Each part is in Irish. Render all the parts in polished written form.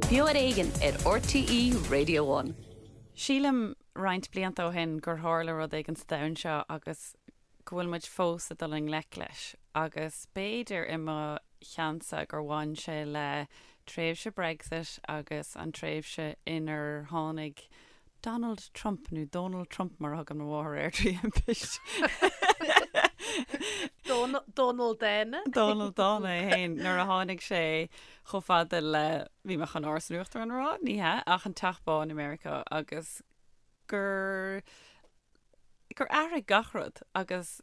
Beo ar Éigean ar RTÉ Radio One. Sílim roinnt blianta ó shin gur tharla rud éigin sa domhan seo agus go bhfuil muid fós ag dul i ngleic leis agus b'fhéidir i mo cheannsa gur bhain sé le tréimhse Brexit agus an tréimhse inar tháinig Donald Trump, nó Dónal Trump mar a thugann mo mháthair air trí thimpist. Dónal Dána. Dónal Dána é féin nuair a tháinig sé chomh fada le, bhí mé chun Áras an Uachtaráin a rá, ní hea, ach an Teach Bán i Meiriceá agus gur gur athraigh gach rud agus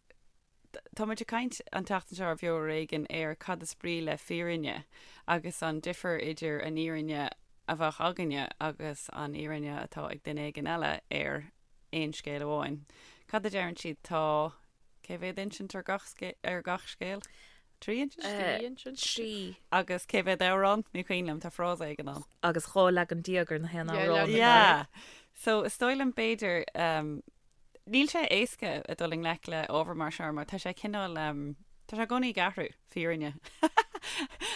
Tá muid ag caint an tseachtain seo ar Bheo Ar Éigean ar cad is brí le fírinne agus an difear idir an fhírinne a bheadh againne agus an fhírinne atá ag duine éigin eile ar aon scéal amháin. Cad a deireann siad? Tá cé mhéad insint ar gach ar gach scéal? 3 insint? 3 insint. 3. Agus cé mhéad amhrán? Ní cuimhin liom, tá frása éigin ann. Agus 12 leagan ar na haon amhrán. Yeah. So is dóigh liom b'fhéidir um, Níl sé éasca a dul i ngleic le ábhar mar seo mar tá sé cineál, tá sé i gcónaí ag athrú, fírinne.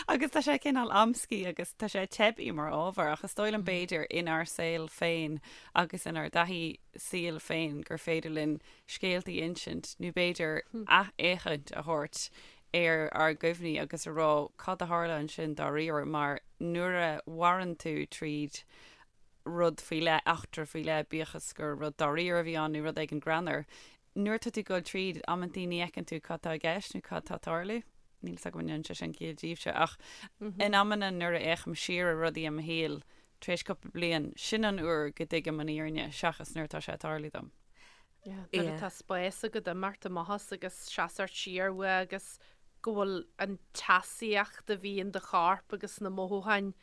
Agus tá sé cineál amscaí agus tá sé teibí mar ábhar ach is dóigh liom b'fhéidir inár saol féin agus inár dtaithí saoil féin gur féidir linn scéaltaí a insint nó b'fhéidir athfhéachaint a thabhairt ar ár gcuimhní agus a rá cad a tharla ansin dáiríre mar nuair a mhaireann tú tríd rud faoi leith, eachtra faoi leith, bíodh is gur rud dáiríre a bhí ann nó rud éigin greannmhar. Nuair atá tú ag dul tríd, amantaí ní fheiceann tú cad tá i gceist nó cad tá ag tarlú. Níl 'fhios agam an ndéanann sé sin ciall daoibhse, ach in amanna nuair a fhéachaim siar ar rudaí i mo shaol tar éis cúpla bliain, sin an uair go dtuigim an fhírinne seachas nuair atá sé ag tarlú dom. Yeah, nuair atá spás agat imeacht amach as agus seasamh siar uaidh agus go bhfuil an teasaíocht a bhí in do chorp agus na mothúcháin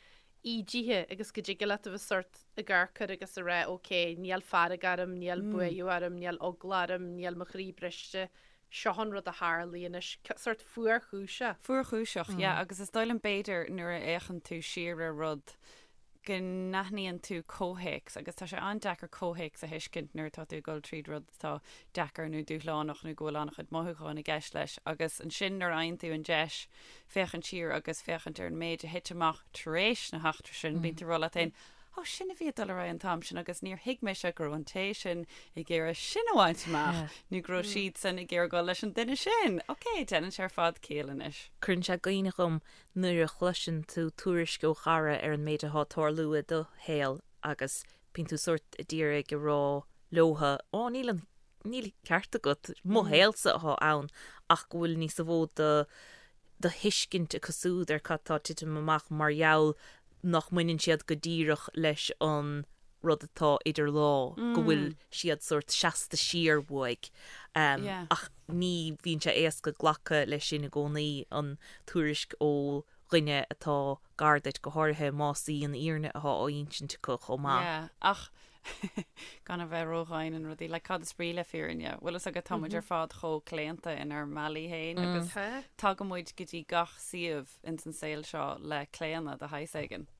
ídithe agus go dtig leat a bheith sórt ag amharc air agus a rá ok, níl fearg orm, níl buaidh orm, níl eagla orm, níl mo chroí briste, seo an rud a tharlaigh anois, sórt fuarchúiseach. Fuarchúiseach, yeah, agus is dóigh liom b'fhéidir nuair a fhéachann tú siar ar rud go n-aithníonn tú comhthéacs agus tá sé an-deacair comhthéacs a thuiscint nuair atá tú ag dul tríd rud atá deacair nó dúshlánach nó go bhfuil an-chuid mothúcháin i gceist leis agus ansin nuair a fhaigheann tú an deis féachaint siar agus féachaint ar an méid a thit amach tar éis na heachtra sin, bíonn tú ag rá leat féin, Ó, sin a bhí ag dul ar aghaidh an t-am sin agus níor thuig mise go raibh an té sin ag iarraidh sin a bhaint amach nó go raibh siadsan ag iarraidh dul leis an duine sin. Ok, déanann sé ar fad ciall anois. Cuireann sé i gcuimhne dhom nuair a chloiseann tú tuairisc ó chara ar an méid atá ag tarlú i do shaol agus bíonn tú sórt ag iarraidh a rá leotha, Ó, níl an níl ceart agat, mo shaolsa atá ann ach go bhfuil níos mó de do thuiscint acu siúd ar cad tá ag titim amach mar gheall nach mbaineann siad go díreach leis an rud atá idir lámha, go bhfuil siad sórt seasta siar uaidh. Ach ní bhíonn sé éasca glacadh leis sin i gcónaí, an tuairisc ó dhuine atá gar duit, go háirithe más í an fhírinne atá á insint acu chomh maith. Yeah, ach gan a bheith ródhian in rudaí, like cad is brí le fírinne? Bhfuil fhios agat, tá muid ar fad chomh claonta inár mbealaí féin agus tagann muid go dtí gach suíomh ins an saol seo le claonadh de shaghas éigin.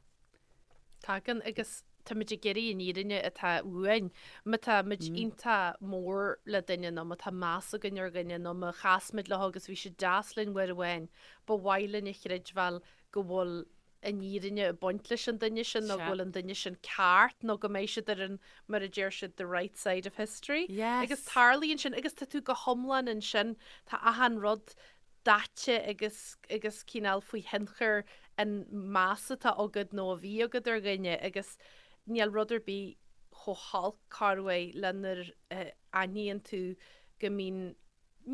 Tagann agus táimid ag iarraidh an fhírinne atá uainn. Má tá muid iontach mór le duine nó má tá meas againn ar dhuine nó má chas muid leo agus bhí siad deas linn uair amháin, ba mhaith linn a chreidbheáil go bhfuil an fhírinne ag baint leis an duine sin nó go bhfuil an duine sin ceart nó go mbeidh siad ar an, mar a deir siad, the right side of history. Agus tarlaíonn sin agus tá tú go hiomlán ansin, tá achan rud daite agus agus cineál faoi thionchar an meas atá agat nó a bhí agat ar dhuine agus níl rud ar bith chomh holc corruair le nuair a aithníonn tú go mbíonn,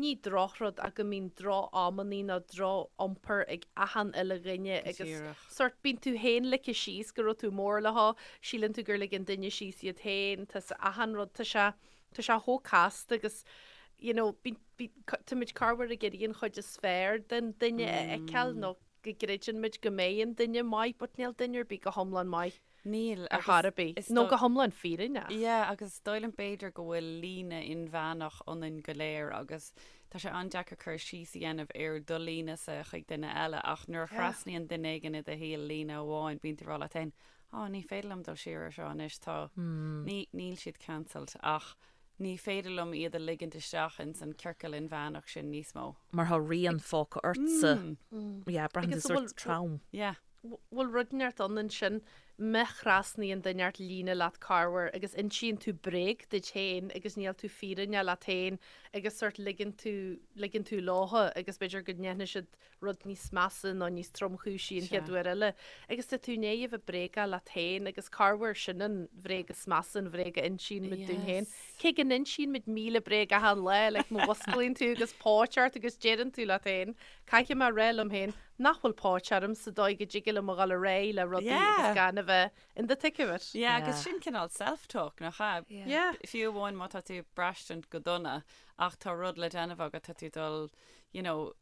ní drochrud ach go mbíonn droch-amannaí nó droch-iompar ag achan uile dhuine agus sórt bíonn tú féin ligthe síos go raibh tú mór leo, síleann tú gur lig an duine síos iad féin, tá achan rud, tá sé Tá sé chomh casta agus you know bíonn bíonn táimid corruair ag iarraidh an chuid is fearr den duine a fheiceáil nó go gcreideann muid go mbeidh an duine maith but níl duine ar bith go hiomlán maith Níl ar chor ar bith is nó go hiomlán fírinneach. Yeah agus is dóigh liom b'fhéidir go bhfuil líne inmheánach ionainn go léir agus tá sé an-deacair cur síos a dhéanamh ar do líne-sa chuig duine eile ach nuair a thrasnaíonn duine éigin i do shaol líne amháin bíonn tú ag rá leat féin Á, ní féidir liom dul siar ar seo anois, tá, ní, níl siad cancelled ach ní féidir liom iad a ligint isteach ins an ciorcal inmheánach sin níos mó. Mar tá rian fágtha ortsa. Yeah, braitheann tú sórt trom. Yeah. Bhfuil rud inteacht ann ansin? Má thrasnaíonn duine ort líne leat corruair agus insíonn tú bréag duit féin agus níl tú fírinneach leat féin agus sort ligeann tú, ligeann tú leotha agus b'fhéidir go ndéanfaidh siad rud níos measa nó níos tromchúisí an chéad uair eile agus tá tú i ndiaidh a bheith bréagach leat féin agus corruair sin an bhréag is measa, an bhréag a insíonn muid dúinn féin. Cé go n-insíonn muid 1,000 bréag achan lá, like má mhusclaíonn tú agus póit ort agus deireann tú leat féin, Caithfidh mé a rá liom féin nach bhfuil póit orm sa dóigh go dtig liom a dhul ar aghaidh le rudaí agus gan a bheith in the thick of it. Yeah, agus sin cineál self-talk, nach ea? Yeah. Fiú amháin má tá tú ag braistint go dona ach tá rud le déanamh agat, tá tú dul, you know,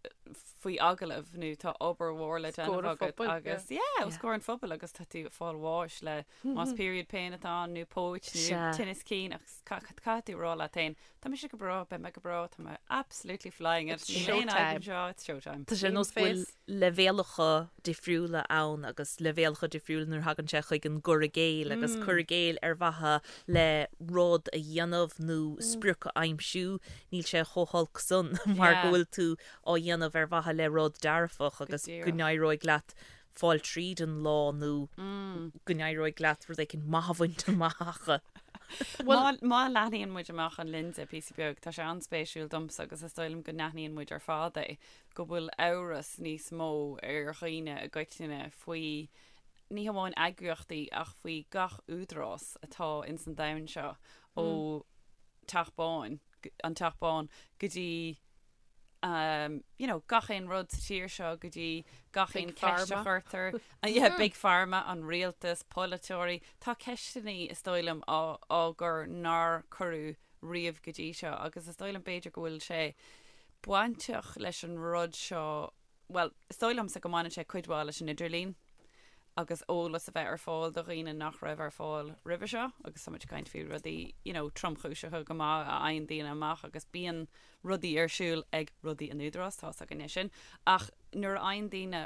faoi agallamh nó tá obair mhór le déanamh agat agus, yeah, os comhair an phobail agus tá tú ag fáil bháis le más period pain atá ann nó póit nó tinneas cinn ach caithfidh tú a rá leat féin, Tá mise go breá, beidh mé go breá, tá mé absolutely flying it. It's showtime. Anseo, it's showtime. Tá sé ar nós go bhfuil leibhéalacha difriúla ann agus leibhéalacha difriúla nuair a thagann sé chuig an gcur i gcéill agus cur i gcéill ar mhaithe le rud a dhéanamh nó sprioc a aimsiú, níl sé chomh holc san mar go bhfuil tú á dhéanamh ar mhaithe le rud dearfach agus go n-éireoidh leat fáil tríd an lá nó go n-éireoidh leat rud éicint maith a bhaint amach. Má má leathnaíonn muid amach an lionsa píosa beag, tá sé an-spéisiúil domsa agus is dóigh liom go n-aithníonn muid ar fad é, go bhfuil amhras níos mó ar dhaoine i gcoitinne faoi ní hamháin eagraíochtaí ach faoi gach údarás atá ins an domhan seo ó Teach Bán, an Teach Bán go dtí um, you know, gach aon rud sa tír seo go dtí gach aon ceist a chuirtear, yeah, Big Pharma, an rialtas, polaiteoirí, tá ceisteanna is dóigh liom á, á gcur nár cuireadh riamh go dtí seo agus is dóigh liom b'fhéidir go bhfuil sé bainteach leis an rud seo bhuel, is dóigh liomsa go mbaineann sé cuid mhaith leis an idirlíon agus eolas a bheith ar fáil do dhaoine nach raibh ar fáil roimhe seo agus tá muid ag caint faoi rudaí you know, tromchúiseacha go maith a fhaigheann daoine amach agus bíonn rudaí ar siúl ag rudaí an Údarás, tá's againne sin, ach nuair a fhaigheann daoine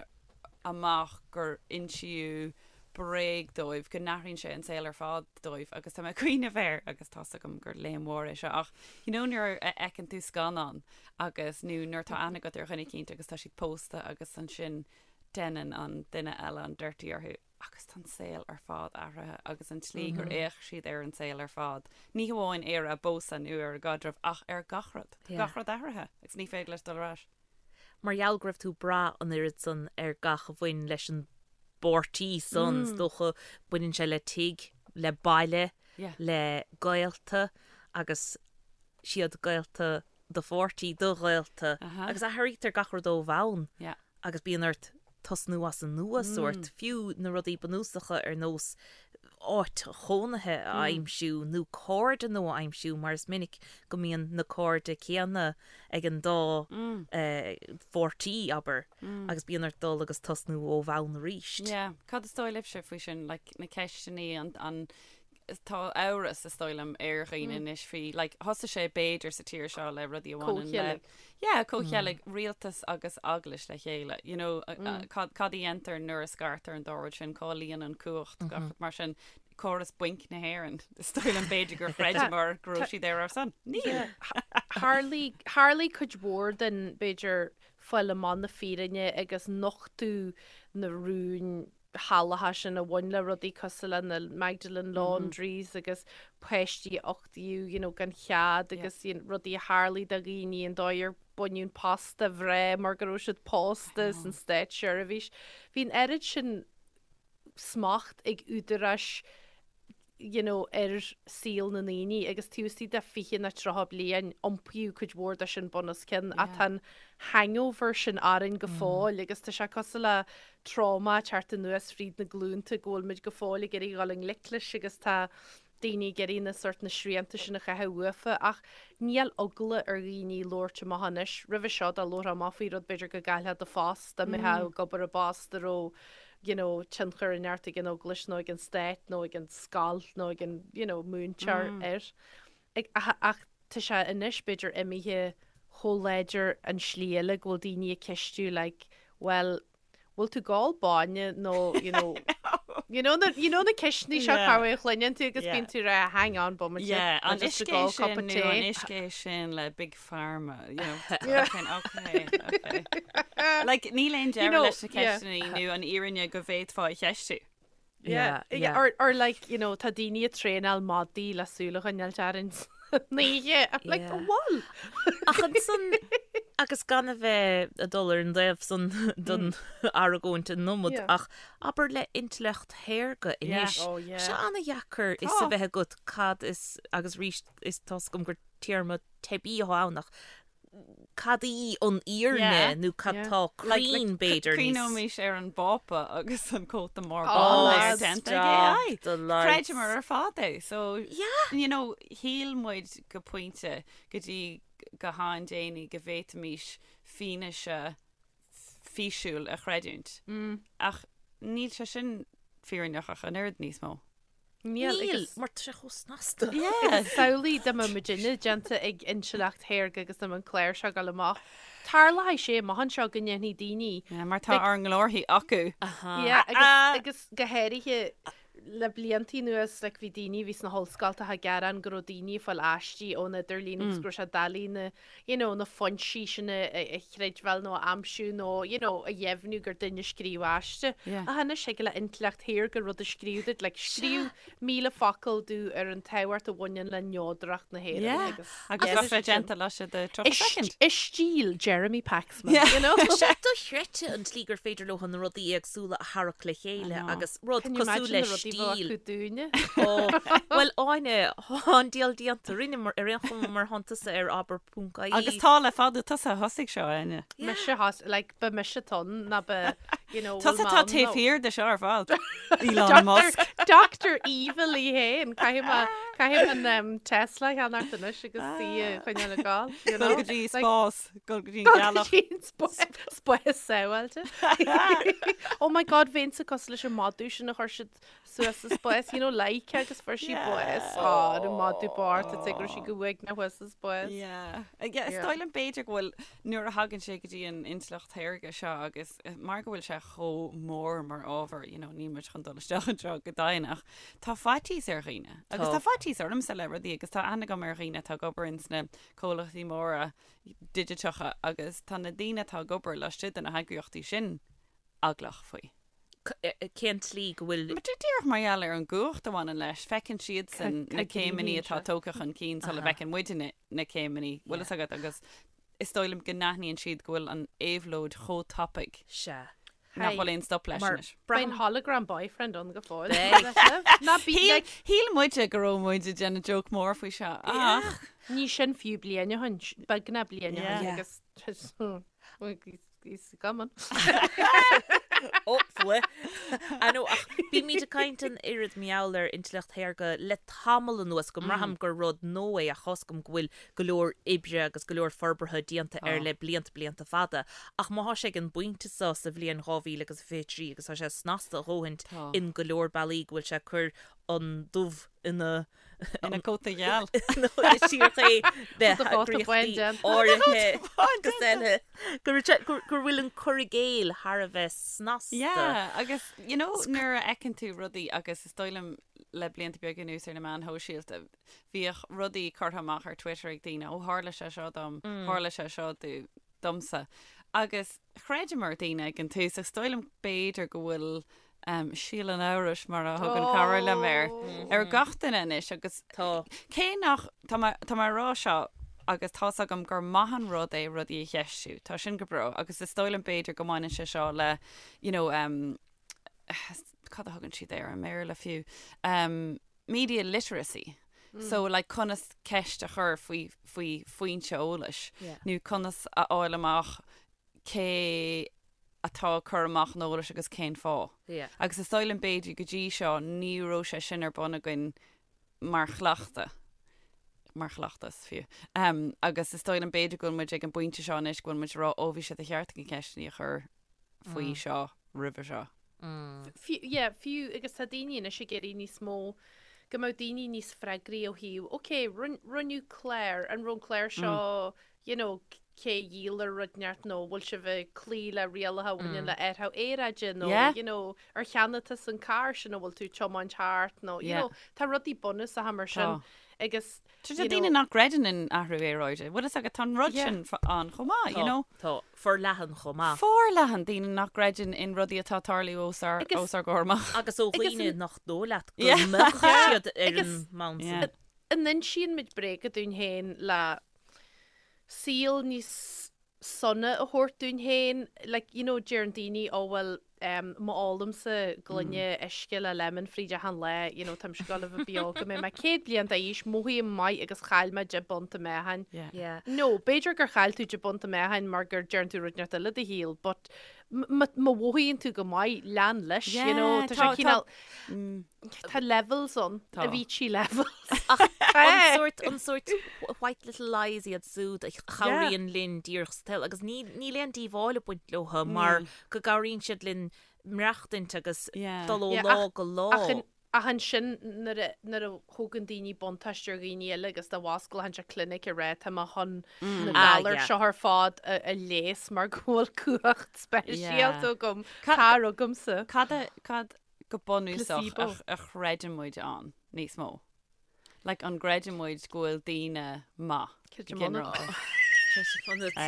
amach gur insíodh bréag dóibh, go n-athraíonn sé an saol ar fad dóibh agus tá mé ag cuimhneamh air agus tá's agam gur léim mhór é seo ach you know nuair a fheiceann tú scannán agus nó nuair atá aithne agat ar dhuine eicínt agus tá siad pósta agus ansin deineann an duine eile an dirty orthu agus tá an saol ar fad athraithe agus an tslí gur fhéach siad ar an saol ar fad, ní hamháin ar a bpósadh nó ar a gcaidreamh ach ar gach rud, tá gach rud athraithe agus ní féidir leis dul ar ais. Mar gheall go raibh tú ag brath an oiread san ar gach a bhain leis an bpáirtí san, is dócha, baineann sé le tigh, le baile, le gaolta agus siad gaolta do pháirtí, do ghaolta agus athraítear gach rud ó bhonn agus bíonn ort tosnú as an nua sórt, fiú na rudaí bunúsacha ar nós áit chónaithe a aimsiú nó cairde nua a aimsiú mar is minic go mbíonn na cairde céanna ag an dá pháirtí, abair, agus bíonn ort dul agus tosnú ó bhonn arís. Yeah. Cad is dóigh libhse faoi sin, like, na ceisteanna, an, an, tá amhras, is dóigh liom, ar dhaoine anois faoi, like, thosaigh sé b'fhéidir sa tír seo le rudaí a bhaineann le, yeah, comhcheilg, rialtas agus eaglais le chéile, you know, cad, cad a dhéantar nuair a scartar an dá rud sin, cá luíonn an cumhacht, gach rud mar sin, córas bainc na hÉireann, is dóigh liom b'fhéidir gur chreideamar go raibh siad ar ár son. Níl! Tharlaigh, tharlaigh cuid mhór den, b'fhéidir, fáil amach na fírinne agus nochtadh na rúin shalacha sin a bhain le rudaí cosúil le na Magdalene Laundries agus páistí a uchtaíodh you know gan chead agus you know rudaí a tharlaigh do dhaoine an dóigh ar baineadh an post de mhná mar go raibh siad pósta san státseirbhís. Bhí an oiread sin smacht ag údaráis you know, ar saol na ndaoine agus taobh istigh de 20 nó 30 bliain iompaíodh cuid mhór de sin bun os cionn ach tá an hangover sin orainn go fóill agus tá sé cosúil le trauma ag teacht anuas fríd na glúnta go bhfuil muid go fóill ag iarraidh dhul i ngleic leis agus tá daoine ag iarraidh na sort na srianta sin a chaitheamh uafa ach níl eagla ar dhaoine labhairt amach anois. Roimhe seo dá labharfá amach faoi rud b'fhéidir go gcaillfeá do phost dá mbeifeá ag obair i bpost a raibh you know, tionchar inteacht ag an eaglais nó ag an stát nó ag an scoil nó ag an, you know, múinteoir air. Ag, ach, ach tá sé anois b'fhéidir imithe chomh láidir an slí eile go bhfuil daoine ag ceistiú like, well, bhfuil tú ag ól bainne nó, you know, you know na, you know na ceisteanna seo Yeah. cá a chluineann tú agus Yeah. bíonn tú ag rá, hang on, bomaite, Yeah, an just ag uisce ól cupa sin nó an tae. uisce sin le Big Pharma, you know, Yeah. okay, okay, okay. Like, níl aon deireadh leis na ceisteanna nó an fhírinne go bhféadfá a cheistiú. Yeah, yeah. Or, or like, you know, tá daoine ag traenáil madaí le súil a choinneáil orainn san oíche. I'm like, Yeah. bhfuil? Ach ansan, agus gan a bheith ag dul ar an dtaobh san den argóint an iomad, Yeah. ach abair le intleacht shaorga Yeah. anois, Oh, yeah. sé ana-dheacair fhios Tá. a bheith agat cad is, agus arís is tá's agam gur téarma teibí atá ann ach cad í an fhírinne Yeah. nó cad Yeah. tá cruinn b'fhéidir níos Cuimhneoimis ar an bPápa agus an cóta mór Oh, bán lads, déanta ag AI. stop the lights. Chreideamar ar fad é. So, Yeah. you know, shíl muid go pointe go dtí go han-déanaí go bhféadfaimis fianaise físiúil a chreidiúint. Ach níl sé sin fírinneach ach an oiread níos mó. Níl, Níl, agus mar tá sé chomh snasta. Yes. Samhlaigh dá mbeadh muidinne déanta ag intleacht shaorga agus dá mbeadh an clár seo ag dul amach. Tarlóidh sé amach anseo go ndéanfaidh daoine Yeah, mar tá ár nglórthaí acu. Yeah, agus, agus go háirithe le bliantaí anuas like, bhí daoine a bhí sna hollscoltacha ag gearán go raibh daoine ag fáil aistí ón idirlíon agus go raibh sé doiligh na you know, na foinsí sin a, a, a chreidbheáil nó a aimsiú nó you know, a dheimhniú gur duine a scríobh aiste. Yeah. Ach anois thig le intleacht shaorga rud a scríobh duit, like, scríobh 1000 focal domh ar an tábhacht a bhaineann le neodracht na hÉireann Yeah. agus Agus yeah. bheadh sé déanta laistigh de 30 I second. st- I stíl Jeremy Paxman, Yeah. you know? Tá sé dochreidte an tslí gur féidir leo na rudaí éagsúla a tharrac le chéile I know. agus rud Can you cosúil imagine le na rudaí a bheadh stíl. acu dúinne? Ó, Bhuel Áine, tá an diabhal déanta rinne mar ar aon chuma mar thánn tusa ar abair.ie. Agus tá le fada tusa a thosaigh seo, Áine. Mise thos, like, ba mise ton ná ba, you know, Tusa bhfuil tá mé taobh ann nó- thiar de seo ar fad. Elon Musk. Dr. Evil í féin, caithfidh mé caithfidh mé an um, Tesla a cheannacht anois agus í a choinneáil ag gabháil, you Dul know? go dtí Like, spás, dul go dtí an Dul go ghealach. dtí an spás spás sábháilte. Oh my God, bheinnse cosúil leis an madadh sin a chuir siad suas sa spás, you know, Laika agus fuair sí bás. Á, an madadh bocht, is go raibh sí go uaigneach thuas sa spás. Yeah. Yeah, is Yeah. dóigh liom b'fhéidir go bhfuil nuair a thagann sé go dtí an intleacht shaorga seo agus eh, mar go bhfuil sé chomh mór mar ábhar, you know, níl muid chun dul isteach anseo go domhain ach tá faitíos ar dhaoine. Agus Tá. tá faitíos ormsa le rudaí agus tá aithne agam ar dhaoine atá ag obair ins na comhlachtaí móra digiteacha agus tá na daoine atá ag obair laistigh de na heagraíochtaí sin eaglach faoi. Cén tslí go bhfuil. Mar díreach mar gheall ar an gcumhacht a bhaineann leis, feiceann siadsan na céimeanna atá tógtha chun cinn sula bhfeiceann muidne na céimeanna, bhfuil fhios agat, agus is dóigh liom go n-aithníonn siad go bhfuil an éabhlóid chomh tapaidh Sea. nach bhfuil aon stop leis Mar anois. Beidh an hologram boyfriend ann go fóill. Beidh. Ná bí Shíl like, shíl muide go raibh muid ag déanamh joke mór faoi seo, ach ní sin fiú bliain ó shin, beagnach bliain ó shin Yeah. agus He's coming. Ó, fuath. I know, ach bímid ag caint an oiread mar gheall ar intleacht shaorga le tamall anuas go mbraithim gur rud nua é ach tá's agam go bhfuil go leor oibre agus go leor forbartha déanta air le blianta blianta fada. Ach má thá sé ag an bpointe seo sa bhliain 2023 agus tá sé snasta a dhóthaint in go leor bealaí go bhfuil sé ag cur an dubh ina Ina cóta gheal. Nó síreach é de Cóta cóta bain heagraíochtaí déanta. áirithe agus eile. Go raibh sé- gur gur bhfuil an cur i gcéill thar a bheith snasta. Yeah, agus you know nuair a fheiceann tú rudaí agus is dóigh liom le blianta beaga anuas ar na meáin shóisialta, bhíodh rudaí curtha amach ar Twitter ag daoine, ó tharla sé seo dom, tharla sé seo do, domsa. Agus chreideamar daoine ag an tús, ach is dóigh liom b'fhéidir go bhfuil um, síol an amhrais mar a thugann cara liom air, ar gach duine anois agus Tá. cé nach, tá mé, tá mé ag rá seo agus tá's agam gur maith an rud é rudaí a cheistiú, tá sin go breá agus is dóigh liom b'fhéidir go mbaineann sé seo le, you know, um, cad a thugann siad air i mBéarla fiú, um, media literacy. So like conas ceist a chur faoi faoi foinse eolais Yeah. nó conas a fháil amach cé atá ag cur amach an eolais agus cén fáth. Yeah. Agus is dóigh liom b'fhéidir go dtí seo ní raibh sé sin ar bun againn mar chleachtadh, mar chleachtas fiú. Um, agus is dóigh liom b'fhéidir go bhfuil muid ag an bpointe seo anois go bhfuil muid ag rá ó bhí sé de cheart againn ceisteanna a chur faoi seo roimhe seo. Fiú, yeah, fiú agus tá daoine anois ag iarraidh níos mó, go mbeadh daoine níos freagraí ó thaobh, ok, rinneadh clár, an raibh an clár seo, you know, Cé a dhíol rud inteacht nó bhfuil sibh ag cloí le rialacha a bhaineann le athrú aeráide nó you know ar cheannaigh tusa an carr sin a bhfuil tú ag tiomáint thart nó you know tá rudaí bunúsacha mar sin agus Tá daoine nach gcreideann in athrú aeráide. Bhfuil fhios agat tá an rud sin ann chomh maith, you know. Tá, forleathan chomh maith. Forleathan daoine nach gcreideann in rudaí atá ag tarlú os ár os ár gcomhair amach. Agus ó dhaoine nach dóigh leat go mbeadh siad ar an mbonn sin. An insíonn muid bréaga dúinn féin le saol níos sona a thabhairt dúinn féin, like, you know, deireann daoine, oh well, em, má ólaimse gloine uisce le lemon fríd achan lá, you know, táimse ag gabháil a bheith beo go mbeidh mé 100 bliain d'aois, mothaím maith agus chaill mé 10 bpunt i meáchan. Yeah. Yeah. No, b'fhéidir gur chaill tú 10 bpunt i meáchan mar gur deireann tú rud inteacht eile i do shaol, but m- má mhothaíonn tú go maith, lean leis, you know, Yeah, tá sé tá- tá- cineál, Tá levels ann, Tá. Avicii levels. Ach an sórt, an sórt white little lies iad súd a chabhraíonn linn díreach sa tsaol agus ní, níl aon díobháil ag baint leo mar go gcabhraíonn siad linn maireachtaint agus Yeah. dul ó Yeah, lá ach- go lá. Ach an- ach ansin nuair a, nuair a thógann daoine buntáiste ar dhaoine eile agus dá bhfosclódh siad clinic ag rá tá mé chun na Ah, galair yeah. seo ar fad a, a leigheas mar go bhfuil cumhacht speisialta Yeah. agam, Ca- tar chugamsa. Cad a, cad go bunúsach Placebo. a chreideann muid ann níos mó. Like an gcreideann muid go bhfuil daoine maith go Creidim ionat. ginearálta.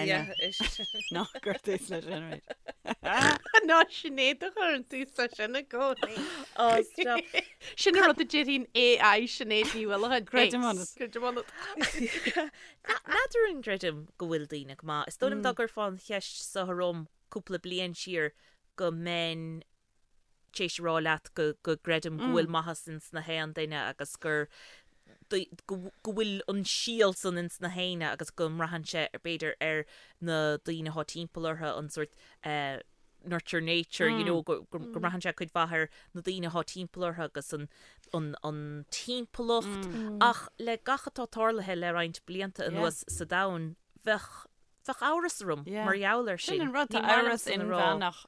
Yeah. Ná cuir tús leis sin arís. Ná Sinéad a chuireann tús leis sin i gcónaí. Oh, stop. Sin an rud a déarfaidh AI Sinéad Ní Uallacháin. Creidim ionat. Creidim ionat. N'fheadar an gcreidim go bhfuil daoine go maith. Is dóigh liom dá gcuirfeá an cheist seo orm cúpla bliain siar go mbeinn tar éis a rá leat go gcreidim go bhfuil maitheas ins na haon duine agus gur go bhfuil an síol san ins na héinne agus go mbraitheann sé b'fhéidir ar na daoine atá timpeall orthu an sórt nurture nature you know go mbraitheann sé cuid mhaith ar na daoine atá timpeall orthu agus an an an timpeallacht ach le gach atá tarlaithe le roinnt blianta anuas sa domhan bheadh bheadh amhras orm mar gheall air sin. Sin an rud, tá Ní maith amhras liomsa a rá. inmheánach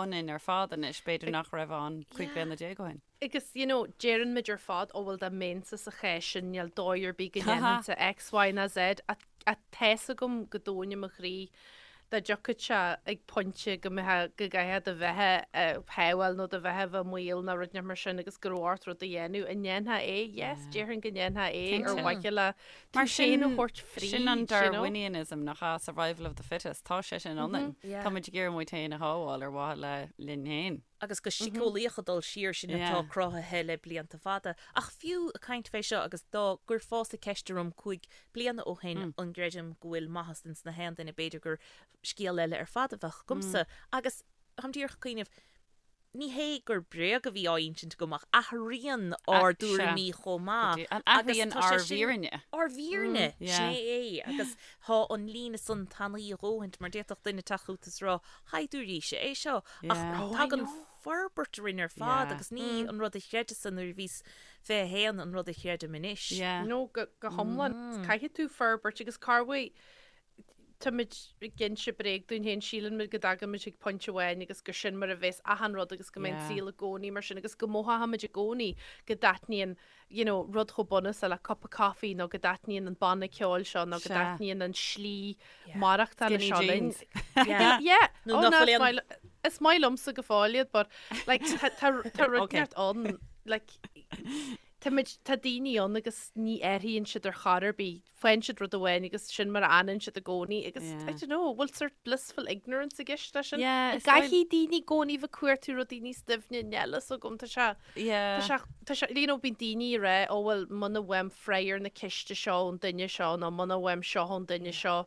ionainn ar fad anois, b'fhéidir nach raibh ann 15 bliana ó shin. Agus, you know, deireann muid ar fad, ó bhuel dá mbeinnse sa chás sin, níl dóigh ar bith go ndéanfainnse X, Y ná Z, ach tá's agam go domhain i mo chroí dá dtiocfadh sé ag pointe go mbeifeá, go gcaithfeá do bheatha a shábháil nó do bheatha a bheith i mbaol nó rud inteacht mar sin agus go raibh ort rud a dhéanamh, an ndéanfá é? Yes, déarfainn go ndéanfá é ar mhaithe le tú Mar féin a thabhairt fríd, sin an you know. Darwinianism nach ea, survival of the fittest, tá sé sin ionainn. Yeah. Tá muid ag iarraidh muid féin a shábháil ar mhaithe le linn féin. Agus go síceolaíoch ag dul siar sin atá Yeah. cruthaithe le blianta fada. Ach fiú ag caint fé seo agus dá gcuirfeása ceist orm 5 bliana ó shin an gcreidim go bhfuil maitheas ins na haon duine b'fhéidir gur scéal eile ar fad a bheadh agamsa. Agus táim díreach ag cuimhneamh, Ní hé gur bréag a bhí á insint agam ach athraíonn ár dtuairimí chomh maith. An athraíonn ár bhfírinne. Ár bhfírinne, sin é é. Agus tá an líne san tanaí a dhóthaint mar d'fhéadfadh duine teacht chugat is rá, 'Shaighdiúirí, sé é seo. Ach tagann forbairt orainn ar fad agus ní an rud a chreideas-sa nuair a bhíos 21 an rud a chreidim anois. No, go hiomlán. Caithfidh tú forbairt agus corruair Táimid ag inse bréag dúinn féin, síleann muid go dtagann muid chuig pointe amháin agus gur sin mar a bheas achan rud agus go mbeidh an saol i gcónaí mar sin agus go mothóimid i gcónaí go dtaitníonn you know, rud chomh bunúsach le cupa coffee nó go dtaitníonn an banna ceoil seo nó go dtaitníonn an slí maireachtála seo linn. Yeah. Nó Oh, nach no, bhfuil is aon- maith is maith liomsa go fóill iad, but like tá tá tá rud Okay. neart ann like tá muid tá daoine ann agus ní athraíonn siad ar chor ar bith. faigheann siad rud amháin agus sin mar a fhanann siad i gcónaí agus Yeah. I don't know, bhfuil sort blissful ignorance i gceist leis sin? Yeah, is dóigh- Caithfidh daoine i gcónaí bheith ag cuartú rudaí níos doimhne níl a fhios agam, tá sé, Yeah. tá sé, tá sé, you know, bíonn daoine ag rá, ó bhuel, muna bhfaighim freagra ar na ceiste seo ón duine seo nó muna bhfaighim seo ón duine seo,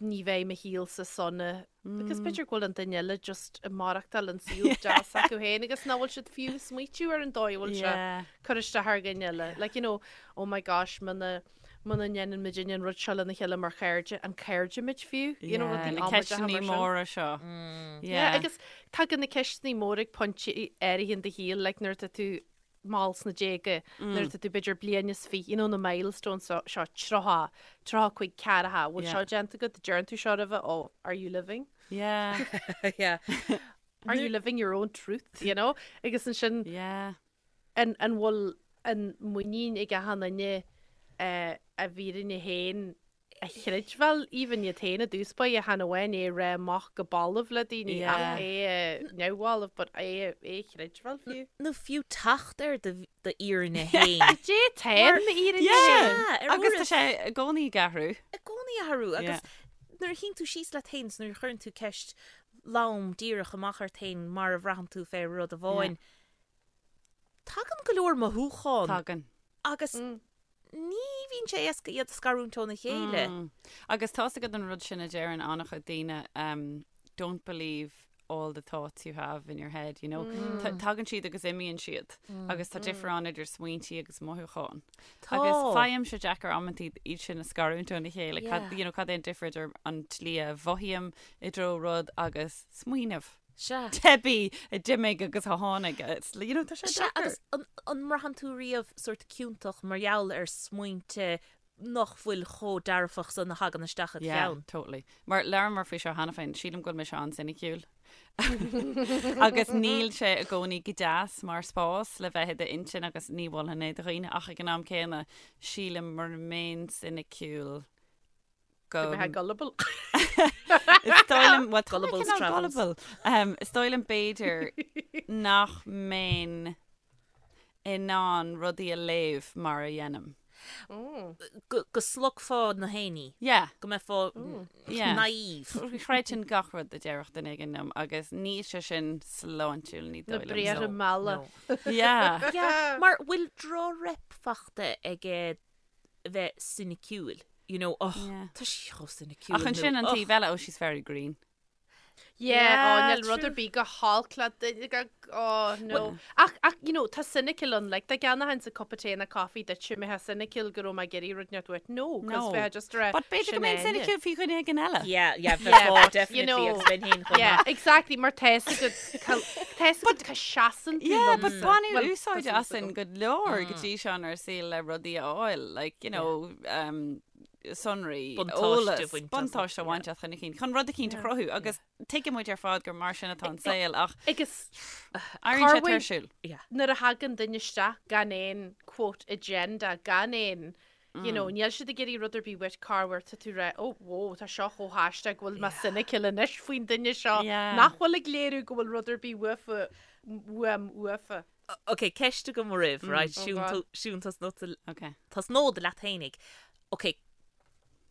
ní bheidh mo shaolsa sona. Because b'fhéidir go bhfuil an duine eile just ag maireachtáil an saol deas acu féin agus nach bhfuil siad fiú ag smaoitiú ar an dóigh a bhfuil sé Yeah. cur isteach ar dhuine eile. Like, you know, oh my gosh, muna muna ndéanann muid an rud seo lena chéile mar chairde, an cairde muid fiú? You know, Yeah, rudaí na amaideacha ceisteanna mar sin. móra seo. Yeah, agus tagann na ceisteanna móra ag pointe áirithe in do shaol, like nuair atá tú mall sna déaga, nuair atá tú b'fhéidir bliain is fiche, you know, na milestones seo, seo 30, 35, 40, bhfuil Yeah. seo déanta agat, deireann tú seo roimhe, oh, are you living? Yeah. Yeah. Are you living your own truth, you know? Agus ansin, Yeah. an, an bhfuil an muinín ag achan duine eh, a bhfírinne féin. a chreidbheáil even iad féin i dtús báire chan amháin é a rá amach go balbh le daoine ach é a neamhbhalbh but é a chreidbheáil fiú. Nó fiú teacht ar do d'fhírinne féin. Cad é atá ar m'fhírinne féin? Agus tá sé i gcónaí ag athrú. I gcónaí ag athrú agus nuair a shuíonn tú síos leat féin is nuair a chuireann tú ceist lom díreach amach ort féin mar a bhraitheann tú fé rud amháin, tagann go leor mothúchán. Tagann. Agus ní bhíonn sé éasca iad a scarúint óna chéile. Agus tá's agat an rud sin a deireann an-chuid daoine, don't believe all the thoughts you have in your head, you know. Tagann siad agus imíonn siad agus tá difear ann idir smaointí agus mothúcháin. Tá. Agus faighimse deacair amantaí iad sin a scarúint óna chéile, cad, you know, cad é an difear idir an tslí a mhothaím i dtreo rud agus smaoineamh. Sea. Teibí a d'imigh agus a tháinig. It's, you know, tá sé Sea, deacair. agus an, an mbraitheann tú riamh sórt ciontach mar gheall ar smaointe nach bhfuil chomh dearfach san a thagann isteach id Yeah, cheann? totally. Mar labhramar faoi seo cheana féin, sílim go bhfuil mise an-soiniciúil. Agus níl sé i gcónaí go deas mar spás le bheith i d'intinn agus ní mholfainn é do dhaoine ach ag an am céanna sílim mura mbeinn soiniciúil go mbeifeá gullible. Is dóigh liom, well, tá mé Gullible's cineál travels. gullible. Um, is dóigh liom b'fhéidir nach mbeinn in ann rudaí a léamh mar a dhéanaim. Go, go slogfá na héinní. Yeah. Go mbeifeá Yeah. naive. Chreidfinn gach rud a déarfadh duine éigin liom agus níl sé sin sláintiúil ní Na dóigh liom. briathra So, malla. No. Yeah. Yeah, mar bhfuil droch-rep fachta ag bheith soiniciúil. You know, oh, Yeah. tá sí chomh soiniciúil. Ach ansin nó, an oh. taobh eile, oh, she's very green. Yeah, oh, Yeah, níl rud true. ar bith go holc le duine go, oh, no. Ach, ach, you know, tá cynical ann, like, dá gceannóchainnse cupa tae nó coffee duit, mbeifeá cynical go raibh mé ag iarraidh rud inteacht uait. No, 'cause No. bheifeá just ag rá, But b'fhéidir go sin mbeinn Áine. cynical faoi dhuine éigin eile. Yeah, yeah, Yeah, bheifeá, but, you definitely, know, agus bheinn féin chomh Yeah, maith. exactly, mar tá 'fhios agat, tá 'fhios agat cá seasann tú Yeah, but liomsa. baineadh Well, tá úsáid súil asainn agam. go leor go dtí seo inár saol le rudaí a fháil, like, you know, um, sonraí, Buntáiste eolas, a bhaint as, buntáiste a yeah. bhaint as chun cinn, chun rud eicínt a chruthú agus tuigeann muid ar fad gur mar sin atá an saol ach Agus éiríonn sé Corruair- tuirsiúil. Yeah. nuair a thagann duine isteach gan aon quote agenda, gan aon, you know, níl siad ag iarraidh rud ar bith uait corruair tá tú ag rá, oh, whoa, tá seo chomh haisteach go bhfuil mé cynical anois faoin duine seo Yeah. nach bhfuil ag léiriú go bhfuil rud ar bith uafa, uaim uafa. Ok, ceist agam oraibh, right? Oh Siún, God. tú- Siún tosnód Ok. tosnód leat fhéinig. Ok,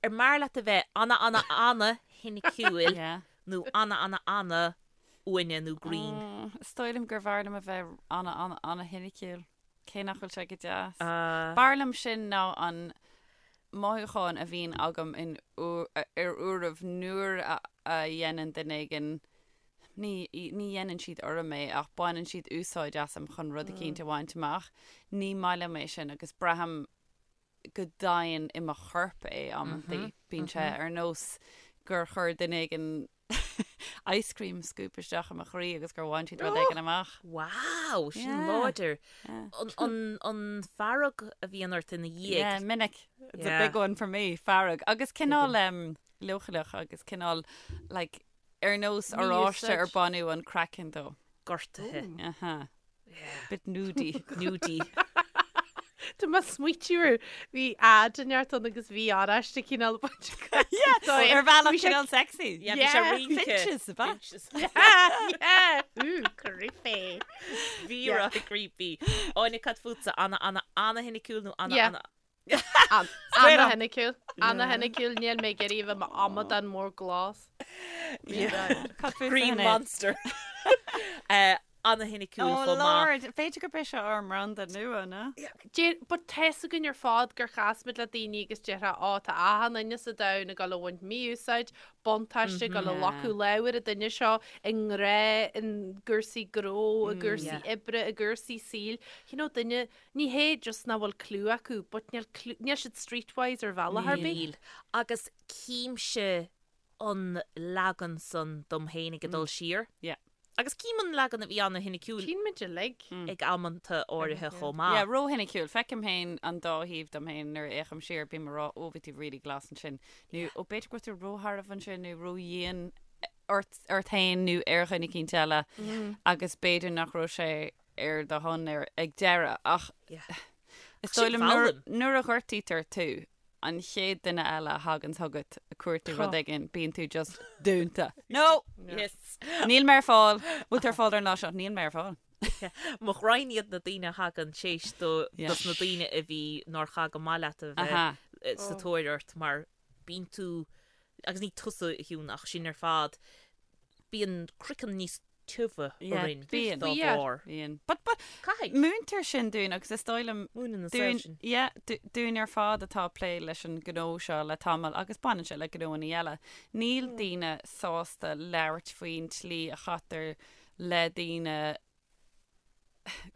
ar mb'fhearr leat a bheith ana ana ana shoiniciúil Yeah. nó ana ana ana uaine nó green? Mm, Is dóigh liom gur bhfearr liom a bheith ana ana ana shoiniciúil. Cé nach bhfuil sé go deas. Uh, B'fhearr liom sin ná an mothúchán a bhíonn agam in ar uairibh nuair a a dhéanann duine éigin ní ní dhéanann siad orm é ach baineann siad úsáid asam chun rud eicínt a bhaint amach. Ní maith liom é sin agus braithim go domhain i mo chorp é amantaí. Bíonn sé ar nós gur chuir duine éigin ice cream scoop isteach i mo chroí agus gur bhain siad rud éigin amach. Wow, sin Yeah. láidir. Yeah. An, an, an fearg a bhíonn ort ina dhiaidh. Yeah, minic. It's a Yeah. big one for me, fearg. Agus cineál um, leochaileach agus cineál like, ar nós oráiste ar Mí-úsáid. baineadh an craiceann dó. Gortaithe. Aha. Bit nudie. Nudie. Tá mé ag smaoitiú ar bhí ad inteacht ann agus bhí oráiste cineál baint Ar bhealach cineál sexy. Yeah, bhí sé Yeah. rince. Finches, ab ea? Finches. Yeah, Ooh, creepy. Bhí rá creepy. Áine cad fútsa ana ana ana shoiniciúil nó ana Yeah. ana Straight up. Ana-shoiniciúil. Ana-shoiniciúil níl mé ag iarraidh a bheith i m'amadán mór glas. Cad fútsa, Green Sinéad? Monster. Eh, Ana-shoiniciúil Oh chomh maith. Lord, b'fhéidir gurb é seo ár mbranda nua, ná? Deir, but tá 'fhios againn ar fad gur chas muid le daoine agus déarfá, ó, tá achan duine sa domhan ag dul a bhaint mí-úsáid, buntáiste, ag dul a ghlacadh lámh ar an duine seo i ngrá, i gcúrsaí gnó, i gcúrsaí oibre, i gcúrsaí saoil. You know, duine, ní hé just nach bhfuil clue acu, but níl clue, níl siad streetwise ar bhealach ar bith. Níl. Agus címse an leagan san dom féin ag dul siar. Yeah. Agus cím an leagan a bhí ana-shoiniciúil Tchíonn muid uilig. ag amanta áirithe chomh maith. Yeah, ró-shoiniciúil. Feicim féin an dá thaobh dom féin nuair a fhéachaim siar, bím ag rá, ó, bhí tú really glas ansin. Nó, ó, b'fhéidir go raibh tú róshearbh ansin nó ródhian ort, ort féin nó ar dhuine eicínt eile agus b'fhéidir nach raibh sé ar do shon ar, ag deireadh. Ach Yeah. is Sin dóigh liom nuair, foghlaim. nuair a ghortaítear tú. an chéad duine eile a thagann chugat ag cuartú rud éigin, bíonn tú just dúnta. No! Yes. Níl mé ar fáil. Bhfuil tú ar fáil ar an lá seo? Níl mé ar fáil. Mo ghraidhin iad na daoine a thagann théis do dos na daoine a bhí nár chaith go maith leat a bheith sa tóir ort mar bíonn tú, agus ní tusa a Shiún ach sinn ar fad, bíonn craiceann níos tiubha orainn dá bharr. Bíonn. But, but, Caithfidh. múintear sin dúinn agus is dóigh liom Múineann an saol dúinn, sin. yeah, dúinn ar fad atá ag plé leis an gnó seo le tamall agus baineann sé le gnóanna eile. Níl daoine sásta labhairt faoin tslí a chaitear le daoine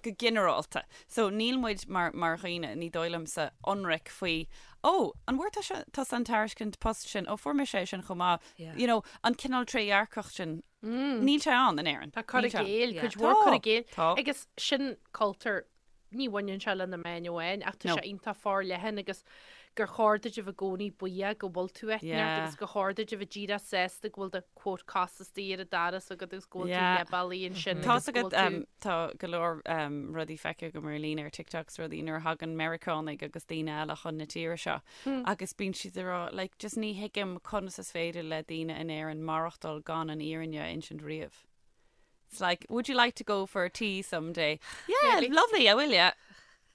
go ginearálta. So níl muid mar, mar dhaoine, ní dóigh liomsa, ionraic faoi, oh, an bhfuair tusa, tusa an tairiscint post sin, oh, fuair mise é sin chomh maith. Yeah. You know, an cineál trédhearcacht sin, níl sé ann in Éirinn. Tá cur Níl i sé ann. gcéill, Yeah. cuid mhór cur i Tá, gcéill. tá. Agus sin cultúr Ní bhaineann sé le na meáin amháin ach tá No. sé iontach forleathan agus gur chóir duit a bheith i gcónaí buíoch go bhfuil tú áit inteacht Yeah. agus gur chóir duit a bheith díreach sásta go bhfuil do quote cos istigh ar an doras agat agus go bhfuil tú Yeah. leath bealaigh ansin Tá agus go agat bhfuil tú um, tá go leor um, rudaí feicthe agam ar líne ar TikTok is rudaí nuair a thagann Meiriceánaigh agus daoine eile chun na tíre seo agus bíonn siad ag rá like, just ní thuigim conas is féidir le daoine in Éirinn maireachtáil gan an fhírinne a insint riamh. It's like, would you like to go for a tea someday? Yeah, Maybe. lovely, I will, yeah.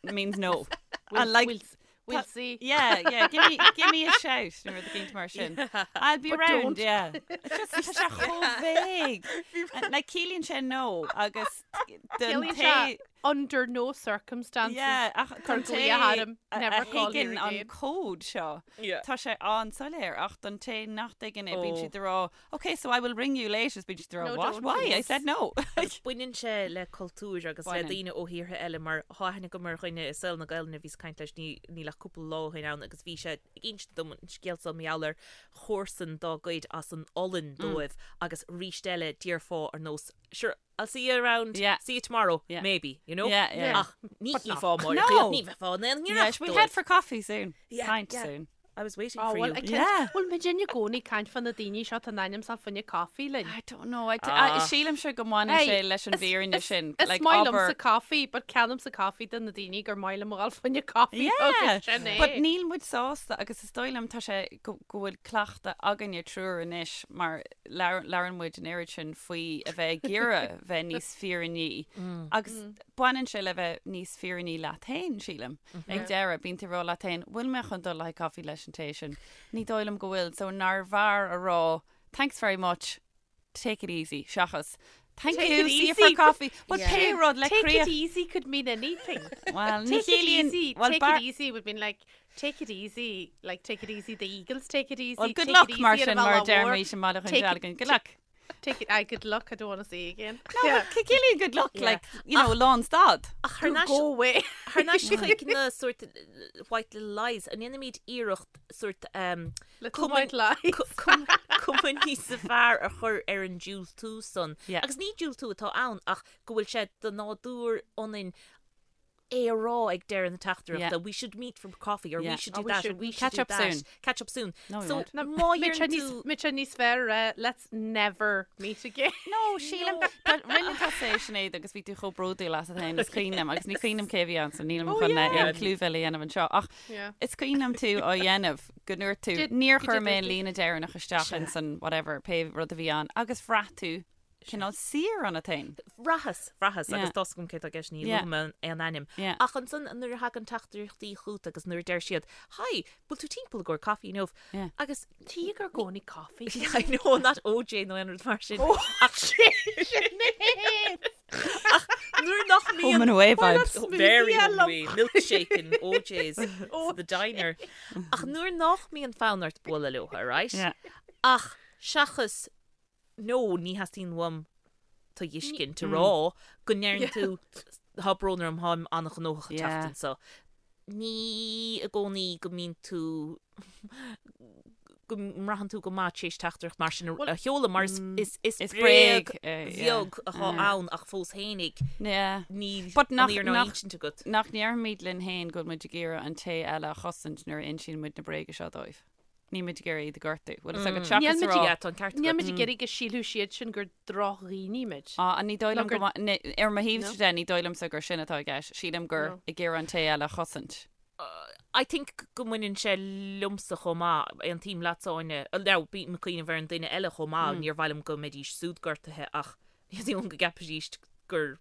Means no. We'll, And like, we'll, we'll ta- see. Yeah, yeah, give me, give me a shout nuair a bhíonn mar sin. I'll be But round, don't. yeah. It's just tá sé chomh vague. And, Like ciallaíonn sé no agus don Ciallaíonn té sé under no circumstances. Yeah, ach Cur don té glaoch orm, a never a call here thuigeann an again. cód seo, Yeah. tá sé an-soiléir ach don té nach dtuigeann é, bíonn Oh. siad ag rá, okay, so I will ring you later, is bíonn siad ag rá, No, what? don't. Why? I said no. Baineann sé le cultúr agus le Baineann. daoine ó thíortha eile mar tá aithne agam ar dhuine i saol na Gaelainne a bhíos ag caint leis ní níl ach cúpla lá ó shin ann agus bhí sé ag insint dom an scéal seo mar gheall ar chomharsan dá gcuid as an Ollainn dóibh agus arís eile déarfá ar nós sure I'll see you around, Yeah. see you tomorrow, Yeah. maybe, you know? Yeah, yeah. Ach ní But not. chífeá mar No. ní bheifeá in aon Yeah, ngiorracht we'll dóibh. head for coffee soon. Yeah, Pint yeah. soon. I was waiting Oh, for well, you. I can't, Yeah. Bhfuil muid i gcónaí ag caint fá na daoine seo tá in ainm is a bheith fá choinne caife linn. I don't know. I, Ah. I, sílimse go mbaineann Hey, sé leis an is- bhfírinne is- sin. Is Like, maith abair- liomsa caife, but ceannaímsa caife do na daoine gur maith liom a dhul fá choinne caife Yeah, agus sin é. but níl muid sásta agus is dóigh liom tá sé go go bhfuil cleachtadh againne triúr anois mar labhrann muid an oiread sin faoi a bheith ag iarraidh bheith níos fírinní agus baineann sé le bheith níos fírinní leat féin, sílim. Ag deireadh, bíonn tú ag rá leat féin, bhfuil mé chun dul le haghaidh caife leis an té sin? Ní dóigh liom go bhfuil, so nárbh fhearr a rá thanks very much, take it easy, seachas thank Take you, it see you for easy. coffee. Well, Yeah. pé rud le Take críoch. it easy could mean anything. Well, ní Take it chiallaíonn- easy. well, Take bar- it easy would mean like take it easy, like take it easy. The Eagles take it easy. Well, good take it luck, easy mar ar sin, an mar bhealach deir mhór. mé sin maith Take it- chun Good luck. Take it. I good luck. I don't want to see you again. No, but ciallaíonn good luck, Yeah. like, you know, lán stad. Ach thar Go, n-ais go away. thar n-ais chuig na sort uh, white little lies an ndéanaimid iarracht sort um, Little cuma- white lies. cu- cum- cuma níos fearr a chur ar an diúltú san. Yeah. Agus ní diúltú atá ann ach go bhfuil sé de nádúr ionainn é a rá ag deireadh na teachtaireachta. Yeah. We should meet for coffee or Yeah. we should Oh, do we that or shouldn't. we should Catch do up that. soon. Catch up soon. No, we so won't. Na, má Mitch dhéanann níos tú Mitch níos fearr uh, let's never meet again. No, sílim rinne tusa é Sinéad agus bhí tú chomh bródúil asat féin is cuimhin liom agus ní cuimhin liom cé bhí ann so nílim Oh, chun yeah. aon clúmhilleadh a dhéanamh anseo ach Yeah. is cuimhin liom tú á dhéanamh go ndúirt tú Did- níor go chuir did mé an tú? líne deireanach isteach in san whatever pé rud a bhí ann agus bhraith tú cineál saor ionat féin. Bhraitheas, bhraitheas Yeah. agus tá a fhios agam cé tá i gceist ní Yeah. luafaidh mé aon ainm. Yeah. Ach ansan nuair a thagann teachtaireachtaí chugat agus nuair a deir siad, Hi, bhfuil tú timpeall i gcomhair caife inniu? Yeah. Agus Tí gur gcónaí coffee. Yeah, I know, not OJ nó aon rud mar sin. Oh, Ach Ach nuair nach mbíonn Home and away vibes. Oh, very Smoothie home and lom. away. Milkshake and OJ's oh, the diner. Ach nuair nach mbíonn fonn ort bualadh leo, right? Yeah. Ach seachas no ní theastaíonn uaim tú a fheiscint a rá go ndeireann tú tá brón orm táim an-ghnóthach an Yeah. tseachtain seo. Ní i gcónaí go mbíonn tú go mbraitheann tú go maith tar éis teachtaireacht mar sin a sheoladh mar is is is Is bréag bréag, eh, yeah. bheag atá ann ach fós fhéinig Yeah. níl But an nach- fhírinne á nach- insint agat. Nach ndéarfaimid linn féin go bhfuil muid ag iarraidh an té eile a chosaint nuair a insíonn muid na bréaga seo dóibh. Níl muid ag iarraidh iad a ghortú. Bhfuil fhios agat Níl seachas muid a rá Yeah, tá an ceart Níl agat. muid ag iarraidh go sílfeadh siad sin gur drochdhaoine muid. Ah, ní dóigh liom Nó gur- go ma- ní- ar mo thaobh No. de ní dóigh liomsa gur sin atá i gceist. Sílim gur No. ag iarraidh an té eile a chosaint. I think go mbaineann sé liomsa chomh maith, aontaím leatsa Áine, now bím ag cuimhneamh ar an duine eile chomh maith, níor mhaith liom go mbeidís siúd gortaithe ach ní dóigh liom go gceapfaidís gur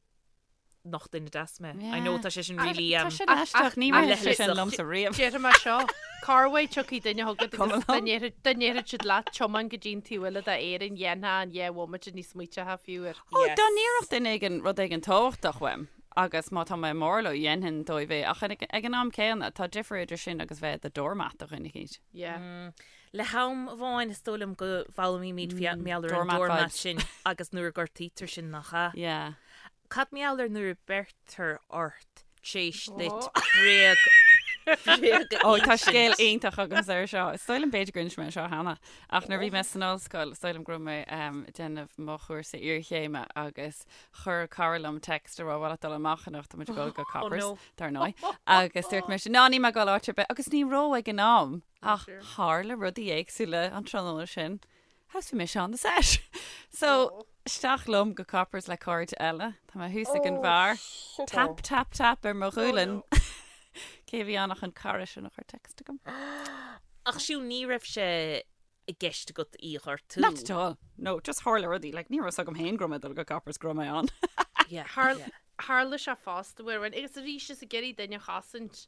nach duine deas mé. I know tá sé sin really Tá sin aisteach, ní raibh sé sin liomsa riamh. Déarfaidh mé seo, corruair tiocfaidh duine chugat agus dá ndéarfadh siad leat tiomáin go dtí an taobh eile d'Éirinn, dhéanfá in 2 bhomaite ní smaointeofá fiú air. Ó, dá n-iarrfadh duine éigin rud éigin tábhachtach uaim, Agus má tá mé mór leo, dhéanfainn dóibh é. Ach ag an am céanna, tá difear idir sin agus bheith i do doormat do dhuine eicínt. Yeah. Le ham amháin, is dóigh liom go bhfoghlaimímid mar gheall ar an doormat sin agus nuair a gortaítear sinn, nach ea? Yeah. Cad mar gheall ar nuair a beirtear ort tréis duit bréag bréag a Ó, tá scéal iontach agamsa ar seo. Is dóigh liom b'fhéidir gur inis mé seo cheana. Ach nuair a bhí mé san ollscoil, is dóigh liom go raibh mé ag déanamh mo chúrsa iarchéime agus Chuir cara liom text a rá bhfuil leat dul amach anocht, tá muid ag dul go Coppers, dar ndóigh. Agus dúirt mise, ná níl mé ag dul áit ar bith, agus ní raibh ag an am, ach tharla rudaí éagsúla an tráthnóna sin. Agus bhí mise on the set. So, isteach liom go Coppers le cairde eile, tá mé thuas ag an bheár, tap, tap, tap ar mo ghualainn. Cé a bhí ann ach an cara sin a chuir text chugam. Ach siúd ní raibh sé i gceist agat í a ghortú. Not at all. No, just tharla rudaí. Like, ní raibh 'fhios agam féin go raibh mé ag dul go Coppers go raibh mé ann. Yeah, Tharla, yeah. tharla sé fosta uair amháin, agus arís is ag iarraidh duine a chosaint,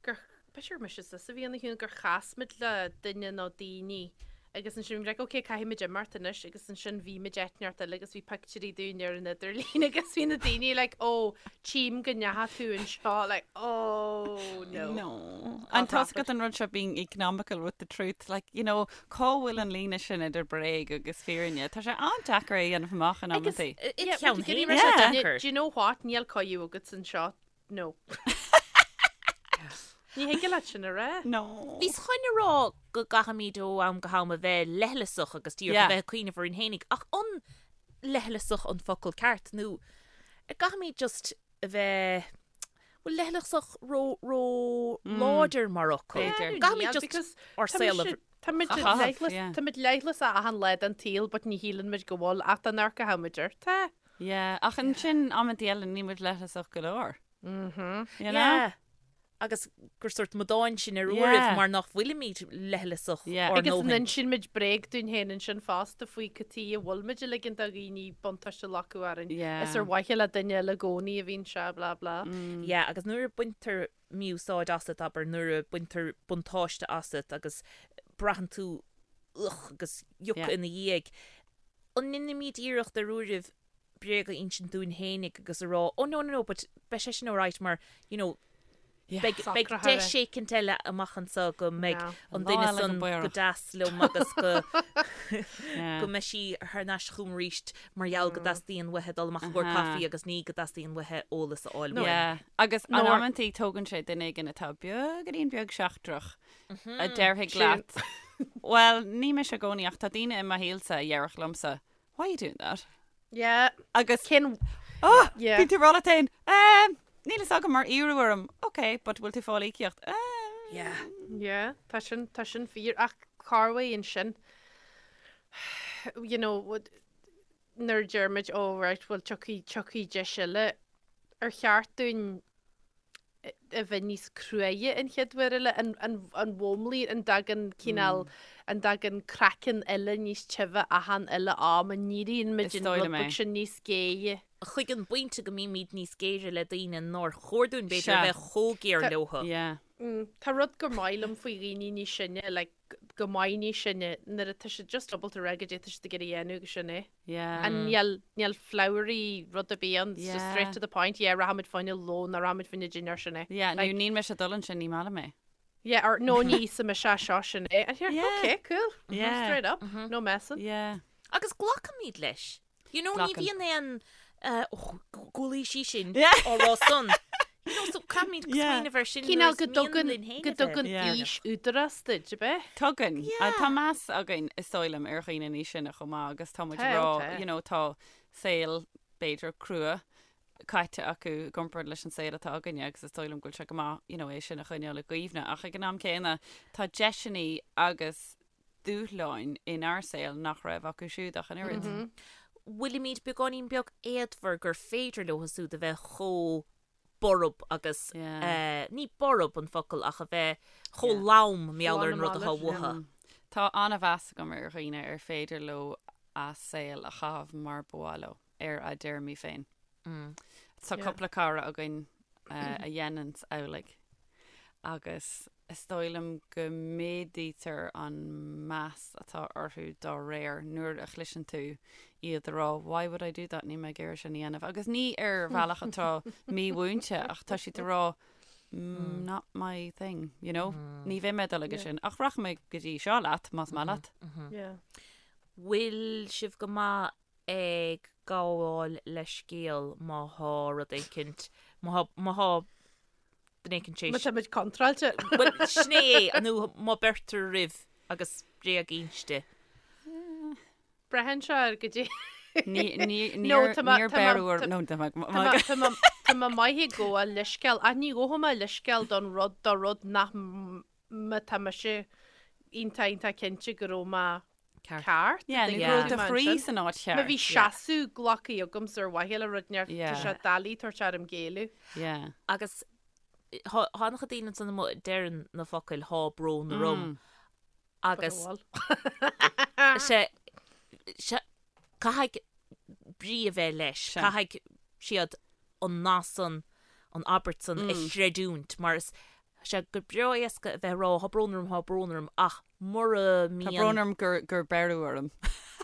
gur, b'fhéidir gur mise is a bhí ina chiúin, gur chas muid le duine nó daoine agus ansin bhí muid like, ok, caithfidh muid imeacht anois, agus ansin bhí muid áit inteacht eile agus bhí pictiúirí dúinn ar an idirlíon agus bhí na daoine like, oh, tchím go ndeachaigh tú anseo, like, oh, no. No. An tá 'fhios agat an rud seo being economical with the truth, like, you know, cá bhfuil an líne sin idir bréag agus fírinne? Tá sé an-deacair é a dhéanamh amach in Agus amantaí. i Yeah, do cheann but you féin get tá sé yeah. deacair. Do you know what? Níl cóiú agat anseo. No. Ní thig leat sin a rá. No. Bhíos chun a rá go gcaithfimid ó am go ham a bheith leithleasach agus díreach Yeah. a bheith ag cuimhneamh orainn fhéinig, ach an leithleasach an focal ceart nó an gcaithfimid just a bheith, bhfuil leithleasach ró, ró láidir mar fhocal? B'fhéidir. Gcaithfimid just because ár tá saol a mise- Tá muid A chaitheamh, leithleas, yeah. tá muid leithleasach achan lá den tsaol but ní shíleann muid go bhfuil ach dá n-amharcfadh muid air. Tá. Yeah, ach ansin amantaí eile níl muid leithleasach go leor. Mhm. You know? Yeah. Agus gur sórt amadáin sinn ar Yeah. uairibh mar nach bhfuilimid leithleasach Yeah. ár Agus an ndóthain. insíonn muid bréag dúinn féin ansin fosta faoi cad chuige a bhfuil muid ag ligean do dhaoine buntáiste a ghlacadh orainn. Yeah. Is ar mhaithe le duine eile i gcónaí a bhíonn sé, blah blah. Yeah, agus nuair a baintear mí-úsáid asat, abair, nuair a baintear buntáiste asat agus braitheann tú ugh agus yuck Yeah. ina dhiaidh, an ndéanaimid iarracht ar uairibh bréag a insint dúinn fhéinig agus a rá, oh no, no, no, but beidh sé sin alright mar, you know, Yeah. beidh, beidh Socraithe. deis éicint eile amach anso go mbeidh Yeah. an Lá duine eile go san go b'fhéidir. deas liom agus go Yeah. go mbeidh sí thar n-ais chugam arís mar gheall go dteastaíonn uaithi dul amach i gcomhair Aha. caife agus ní go dteastaíonn uaithi eolas a fháil uaim. Yeah. Agus an Nó- amantaí tógann sé duine éigin atá beagáinín beag seachtrach a déarfaidh Sin. leat. Well, ní mise i gcónaí ach tá daoine i mo shaolsa a dhéarfadh liomsa, Why are you doing that? Yeah. Agus Cén Oh, Yeah. bíonn tú ag rá leat féin, Um, níl fhios agam mar iarradh orm. Ok, but bhfuil tú ag fáil íocaíocht? Um, Yeah. Yeah, tá sin, tá sin fíor ach corruair ansin you know, what- nuair a deir muid, oh right, well tiocfaidh, tiocfaidh deis eile, ar cheart dúinn a bheith níos cruaidhe an chéad uair eile, an mhúnlaíonn, an dtagann cineál, an dtagann craiceann eile níos tibhe achan uile am, an n-éiríonn muid Is an dóigh rud liom é. beag sin níos géire. Chuig an bpointe go mbímid níos géire le daoine nár chóir dúinn, b'fhéidir, Sea. a bheith chomh géar Tá- leothu. Yeah. Tá rud gur maith liom faoi dhaoine níos sine, like, go maith níos sine, nuair atá siad just ábalta a rá goidé atá siad ag iarraidh a dhéanamh agus sin é. Yeah. And níl, níl flowery rud ar bith ann, it's just straight Yeah. to the point, yeah, rachaimid fá choinne lón nó rachaimid fá choinne dinnéar sin é. Yeah, nó Like- níl mise ag dul ansin, ní maith liom é. Yeah, or no ní íosfaidh mise é seo sin é. And you're, Yeah. okay, cool. Yeah. Straight up, no messing. Yeah. Agus glacaimid leis. You know, ní Glacann. bhíonn aon eh, oh, go bhfuil sí sin Yeah. á rá san. You know, so caithfimid Yeah. smaoineamh ar sin Cineál nuair go is mian dtugann, linn féin go a bheith. dtugann Yeah. aois údarás duit, ab ea? Tugann. Yeah. Tá meas againn is dóigh liom ar dhaoine níos sine chomh maith agus tá muid Tá, ag rá, tá. you know, tá saol b'fhéidir crua caite acu i gcomparáid leis an saol atá againne agus is dóigh liom go bhfuil sé go maith, you know, é sin a choinneáil i gcuimhne ach ag an am céanna tá deiseanna agus dúshláin inár saol nach raibh acu siúd ach an oiread. Bhfuilimid beagáinín beag éadmhar gur féidir leo siúd a bheith chomh. borb agus ní borb an focal ach a bheith chomh lom mar gheall ar an rud atá uathu. Tá an-mheas agam ar dhaoine ar féidir leo a saol a chaitheamh mar ba mhaith leo, ar a dtéarmaí féin. Tá cúpla cara againn a dhéananns amhlaidh agus is dóigh liom go méadaítear an meas atá orthu dá réir nuair a chloiseann tú iad a rá 'why would I do that, níl mé ag iarraidh sin a dhéanamh' agus ní ar bhealach atá mímhúinte ach tá siad ag rá 'not my thing', you know, ní bheidh mé ag dul aige sin ach rachaidh mé go dtí seo leat más maith leat. Bhfuil sibh go maith ag gabháil leithscéal má thá rud éicint, má thá duine éicint tar éis. Má tá muid contráilte. Bhuel, sin é, nó má beirtear roimh agus bréag inste. Braitheann sé ar goidé. Ní, ní, níor, níor beireadh orm, nó tá mé, Tá mé maith ag gabháil leithscéal, ach ní ghabhfaidh mé leithscéal don rud, do rud nach má tá mise iontach iontach cinnte go raibh mé ceart. Yeah, nó go raibh do chroí san áit cheart. Má bhí seasamh glactha agamsa ar mhaithe le rud inteacht, tá sé doiligh tabhairt orm géilleadh. Yeah. Agus thá an-chuid daoine ansan amuigh a deireann na focail thá brón orm agus sé, sé, caithfidh brí a bheith leis, caithfidh siad an nath san, an abairt san a chreidiúint mar is sé go breá éasca a bheith ag rá thá brón orm, thá brón orm ach mura mbíonn. Tá brón orm gur gur beireadh orm.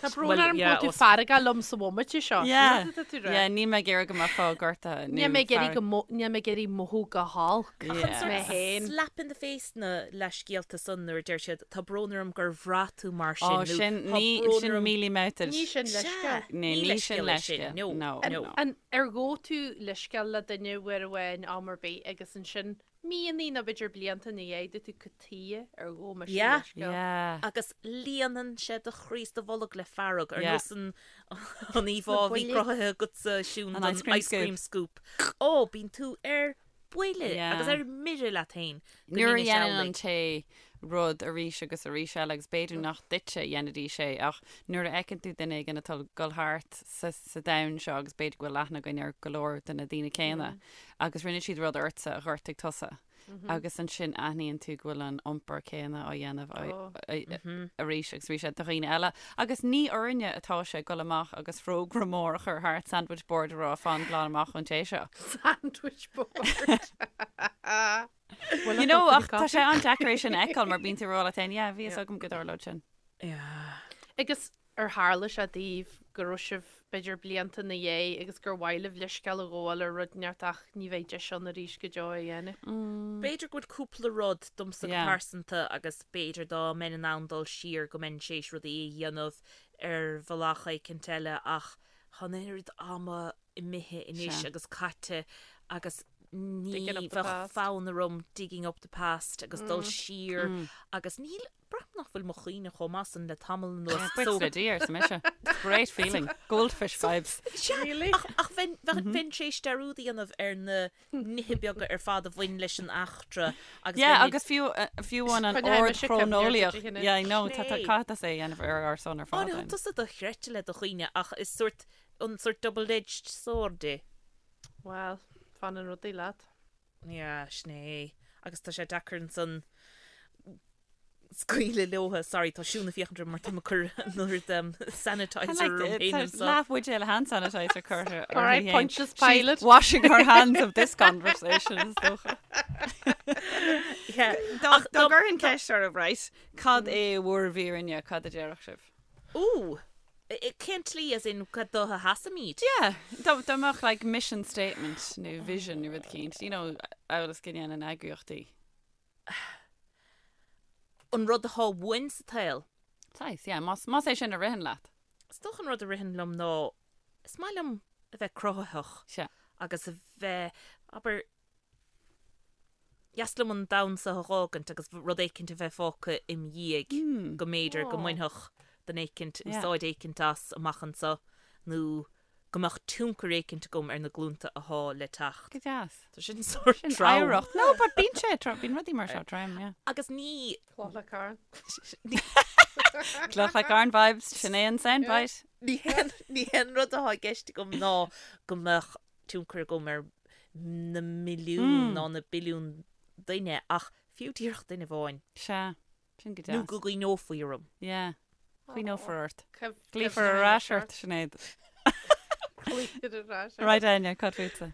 Tá brón orm go bhfuil tú feargach liom sa bhomaite seo. Yeah, yeah, níl mé ag iarraidh go mbeifeá gortaithe nó Níl mé ag iarraidh go mo, níl mé ag iarraidh mothú go holc. Ach an sort mé slap in the face na leithscéalta san nuair a deir siad tá brón orm gur bhraith tú mar sin nó sin, tá brón sin orm. mealy-mouthed. Ní sin leithscéal. Ní ní sin leithscéal é sin. leithscéal. No, No, no. An, ar ghabh tú leithscéal le duine uair amháin am ar bith agus ansin Míonna nó b'fhéidir blianta ina dhiaidh dúirt tú cad tuighe ar ghabh mise Yeah. leithscéal. Yeah. Agus líonann sé do chroí is do bholg le fearg, ar Yeah. nós an an íomhá a bhí buille. cruthaithe agatsa, Siún, An don ice cream ice cream scoop. Ó, bíonn tú ar buile Yeah. agus ar mire leat féin go Nuair a ndéanfaidh sé dhéanann an amhlaidh. té rud arís agus arís eile agus b'fhéidir nach duitse a dhéanfaidís é ach nuair a fheiceann tú duine éigin atá ag dul thart sa sa domhan seo agus b'fhéidir go bhfuil aithne againn ar go leor de na daoine céanna agus rinne siad rud ortsa a ghortaigh tusa agus ansin aithníonn tú go bhfuil an iompar céanna á dhéanamh arís agus arís do dhaoine eile agus ní orainne atá sé dul amach agus fógra mór a chur thart sandwich board a rá fan glan amach ón té seo. Sandwich board. You know, ach tá sé an-deacair é sin a fheiceáil mar bíonn tú ag rá leat féin, yeah, bhí fhios agam go dtarlódh sin. Yeah. Agus Ar tharla sé daoibh go raibh sibh, b'fhéidir, blianta ina dhiaidh agus gur mhaith libh leithscéal a ghabháil ar rud inteacht ach ní bheidh deis ann arís go deo é a dhéanamh? B'fhéidir go bhfuil cúpla rud domsa go pearsanta agus b'fhéidir dá mbeinn in ann dul siar go mbeinn tar éis rudaí a dhéanamh ar bhealach éicint eile ach tá an oiread ama imithe anois agus caite agus ní bheadh fonn orm digging up the past agus dul siar agus níl Braithim nach bhfuil mo chuimhne chomh maith san le tamall anuas. Buíochas le Dia, arsa mise. It's a great feeling. Goldfish vibes. Sea, Really? ach, ach bheinn, bheinn, bheinn tar éis dearúd a dhéanamh ar na nithe beaga ar fad a bhain leis an eachtra agus Yeah, bheinn ag- agus fiú, eh, fiú amháin an Coinneoidh ord mise cuimhne ar chróineolaíoch. duit, a Yeah, I know, tá, tá, Sin é. caithfidh tusa é a dhéanamh ar ár son ar Á, fad. ní then. tusa dochreidte le do chuimhne ach is sort, an sort double-edged sword é. Well, fanann rudaí leat. Yeah, sin é. Agus tá sé deacair ansan scaoileadh leotha. Sorry, tá Siún ag féachaint orm mar tá mé ag cur an oiread um, sanitizer orm féin anseo. Leath bhuidéal hand sanitizer curtha All right, uirthi féin. Pontius She's Pilate. washing her hands of this conversation, is dócha. Yeah. Dá dá gcuirfinn ceist oraibh, right, cad é bhur bhfírinne, cad a déarfadh sibh? Ooh, cén tslí as in cad dó a sheasaimid? Yeah, dá dá mbeadh like mission statement nó vision nó rud éicint, you know, amhail is go ndéanann eagraíochtaí. An rud atá uainn sa tsaol. Saghas, yeah, más más é sin a ritheann leat. Is dócha an rud a ritheann liom ná is maith liom a bheith cruthaitheach Sea. agus a bheith, abair, dheas liom an domhan seo a dh'fhágaint agus rud éicint a bheith fágtha im dhiaidh go mb'fhéidir go mbainfeadh duine éicint úsáid éicint as amach anseo nó go mbeadh tionchar éicint agam ar na glúnta athá le teacht. Go deas. Tá sin sórt Sin trom. oidhreacht. No, but bíonn sé trom, bíonn rudaí mar seo trom, yeah. Agus ní. Cloch le carn. Cloch le carn vibes, sin é an soundbite. Ní hé an rud athá i gceist agam ná go mbeadh tionchar agam ar. na milliúin ná na billiúin duine ach fiú díreach duine amháin. Sea. Sin go deas. Nó go gcuimhneofaí orm. Yeah. Cuimhneofar ort. Glaofar ar ais ort, Sinéad. Glaofar ar ais ort. Right, Áine, cad fútsa?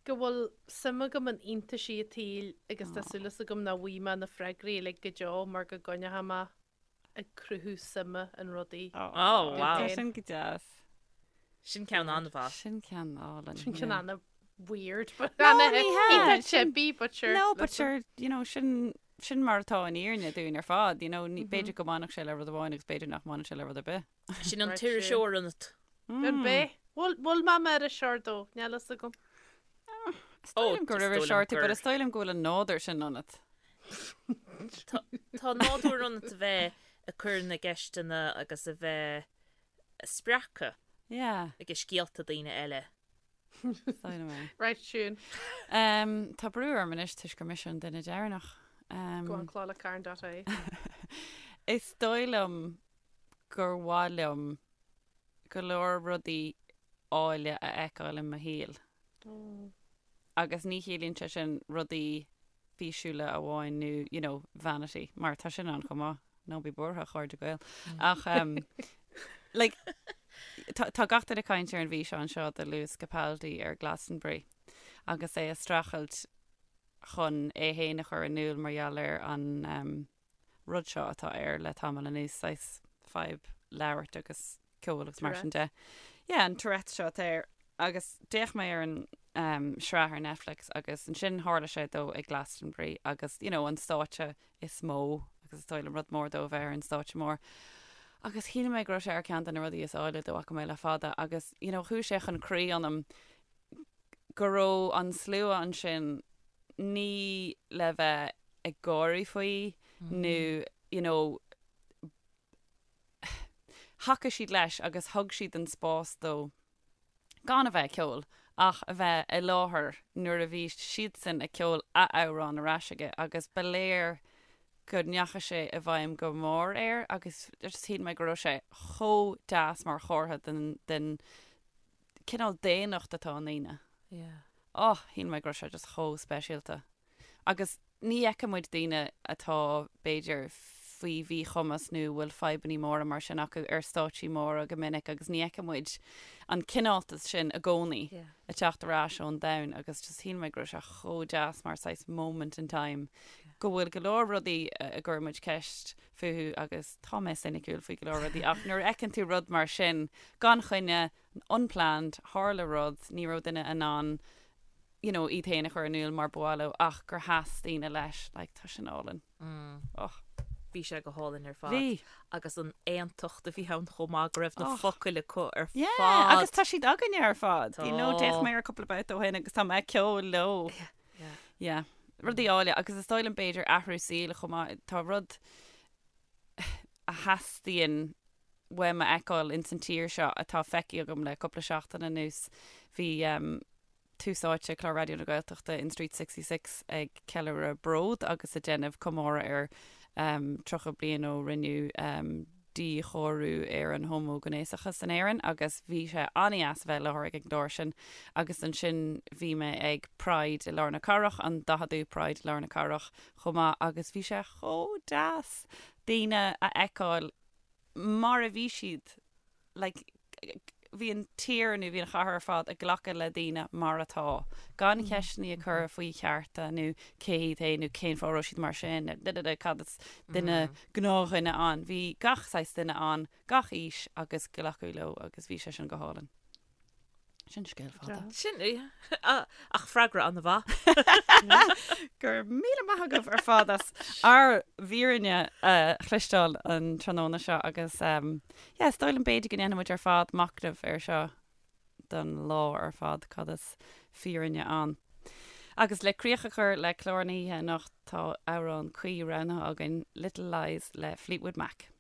Go bhfuil suim agam in iontaisí an tsaoil agus tá súil agam nach bhfaighidh mé na freagraí uilig go deo mar go gcoinneoidh mé ag cruthú suime in rudaí. Oh, wow. Tá sin go deas. Sin ceann an-mhaith. Sin ceann álainn. Sin ceann ana weird. No, ní hea. Chippy, but sure. No, but sure, you know, sin sin mar atá an fhírinne dúinn ar fad, you know, ní b'fhéidir go mbainfeadh sé le rud amháin agus b'fhéidir nach mbainfeadh sé le rud ar bith. Sin an t-iriseoir ionat. An b'é? Bhfuil bhfuil mé mar iriseoir dó? Níl fhios agam. Is dóigh liom gur iriseoir tú, but is dóigh liom go bhfuil an nádúr sin ionat. Tá nádúr ionat a bheith ag cur na gceisteanna agus a bheith spreagtha ag scéalta daoine eile. Right, Siún. Tá brú orm anois toisc gur mise an duine deireanach. Go on clodagh.carn.ie. Is dóigh liom gur mhaith liom go leor rudaí áille a fheiceáil i mo shaol. Agus ní chiallaíonn sé sin rudaí físiúla amháin nó, you know, vanity, mar tá sin ann chomh maith, ná bí buartha, a chairde Gael. Ach, um, like, tá, tá gach duine ag caint ar an bhfíseán seo de Lewis Capaldi ar Glastonbury agus é ag streachailt chun é féin a chur in iúl mar gheall ar an, um, rud seo atá air le tamall anuas, saghas fadhb labhairt agus ceol agus mar sin de. Yeah, an Tourette seo atá air. Agus d'fhéach mé ar an um, sraith ar Netflix agus ansin tharla sé dó ag Glastonbury agus, you know, an stáitse is mó agus is dóigh liom rud mór dó a bheith ar an stáitse mór. Agus shíl mé go raibh sé ar ceann de na rudaí is áille dá bhfaca mé le fada agus, you know, chuaigh sé chun croí ionam go raibh an slua ansin ní le bheith ag gáirí faoi nó you know thacaigh siad leis agus thug siad an spás dó gan a bheith ag ceol ach a bheith i láthair nuair a bhí siadsan ag ceol a amhrán ar ais aige agus ba léir go ndeachaigh sé i bhfeidhm go mór air agus just shíl mé go raibh sé chomh deas mar chomhartha den den cineál daonnacht atá i ndaoine. Yeah. Oh, shíl mé go raibh sé just chomh speisialta. Agus ní fheiceann muid daoine atá, b'fhéidir, faoi mhíchumas nó a bhfuil fadhbanna móra mar sin acu ar stáitsí móra go minic agus ní fheiceann muid an cineáltas sin i gcónaí ag teacht ar ais ón domhan agus just shíl mé go raibh sé chomh deas mar saghas moment in time go bhfuil go leor rudaí a gcuireann muid ceist fúthu agus tá mé soiniciúil faoi go leor rudaí ach nuair a fheiceann tú rud mar sin gan choinne, unplanned, tharla rud, ní raibh duine in ann you know, iad féin a chur in iúl mar ba mhaith leo ach gur sheas daoine leis, like, tá sin álainn. Och. Bhí sé go hálainn ar fad. Bhí. Agus an aontacht a bhí ann chomh maith go raibh na focail acu ar fad. Yeah, agus tá siad againne ar fad. You know, d'fhéach mé ar cúpla babhta ó shin agus tá mé ag ceol leo. Yeah, yeah. Yeah. Rudaí áille agus is dóigh liom b'fhéidir athrú saoil chomh maith. Tá rud a theastaíonn uaim a fheiceáil ins an tír seo atá feicthe agam le cúpla seachtain anuas. Bhí Tús Áite, clár Raidió na Gaeltachta in Street 66 ag ceiliúradh Bród agus ag déanamh comóradh ar 30 bliain ó rinneadh díchóiriú ar an homaighnéasachas in Éirinn agus bhí sé an-deas a bheith i láthair ag an gclár sin agus ansin bhí mé ag Pride i lár na cathrach, an 40ú Pride i lár na cathrach chomh maith agus bhí sé chomh deas daoine a fheiceáil mar a bhí siad like, bhí an tír nó bhí an chathair ar fad ag glacadh le daoine mar atá, gan ceisteanna a chur faoi chearta nó cé hiad féin nó cén fáth a raibh siad mar sin, da da da, cad is duine, gnáthdhuine ann. Bhí gach saghas duine ann, gach aois agus glacadh leo agus bhí sé sin go hálainn. Sin scéal fada. Sin ach freagra an-mhaith. Go raibh míle maith agaibh ar fad as ár bhfírinne a chloisteáil an tráthnóna seo agus yeah, is dóigh liom b'fhéidir go ndéanfaidh muid ar fad machnamh air seo don lá ar fad, cad is fírinne ann. Agus le críoch a chur le clár na hoíche anocht tá amhrán cuí roghnaithe againn, Little Lies le Fleetwood Mac.